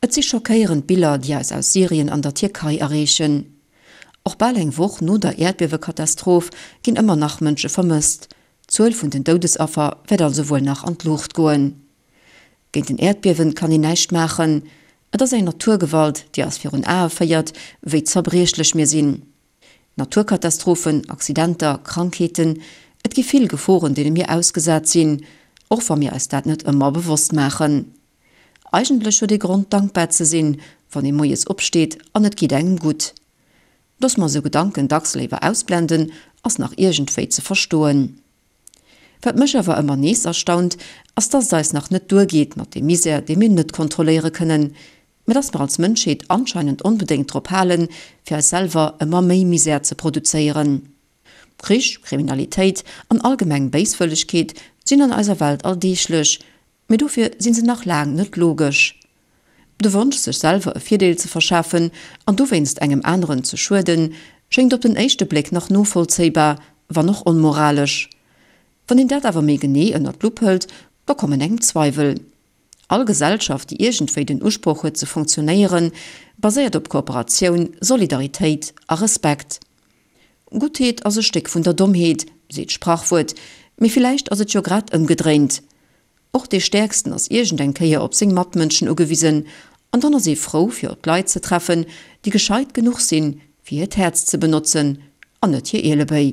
Et si schockéierend Biller, déi eis aus Syrien an der Tierkei erreechen. Och bal eng Woch no der Äerdbiewekatastroph ginn ëmmer nach Mënsche vermësst. D'Zuel vun den Doudesaffer wäert also wuel nach an d'Luucht goen. Géint en Äerdbiewen kann een näischt maachen. Et ass eng Naturgewalt, déi eis virun Ae féiert, wéi zerbriechlech mir sinn. Naturkatastrophen, Accidenter, Krankheeten, et gi vill Geforen, deene mir ausgesat sinn, och wa mir eis dat net ëmmer bewosst maachen. Eigentlech huet ee Grond dankbar ze sinn, wann ee moies opsteet an et geet engem gutt. Dass mer esou Gedanken dacks léiwer ausblenden, ass nach iergendwéi ze verstoen. Wat mech awer ëmmer nees erstaunt, ass dass et eis nach net duergeet mat deem Misär, dee mir net kontrolléiere kënnen, mä dass mer als Mënschheet anscheinend onbedéngt drop halen, fir eis selwer ëmmer méi Misär ze produzéieren. Krich, Kriminalitéit an allgemeng Béiswëllegkeet sinn an eiser Welt alldeeglech, Mee dofir sinn se nach laang net logesch. De Wonsch sech selwer e Virdeel ze verschafen an dowéinst engem aneren ze schueden, schéngt op den éischte Bléck nach novollzéibar, wann och onmoralesch. Wann een dat awer méi genee ënnert d'Lupp hëlt, da kommen engem Zweiwel. All Gesellschaft, déi iergendwéi den Usproch huet ze funktionéieren, baséiert op Kooperatioun, Solidaritéit a Respekt. Guttheet ass e Stéck vun der Dommheet, seet d'Sprachwuert, mee villäicht ass et jo grad ëmgedréint. Och dee Stäerksten ass iergend eng Kéier op seng Matmënschen ugewisen, an dann ass ee frou fir op Leit ze treffen, déi gescheit genuch sinn, fir hiert Häerz ze benotzen an net hir Ielebéi.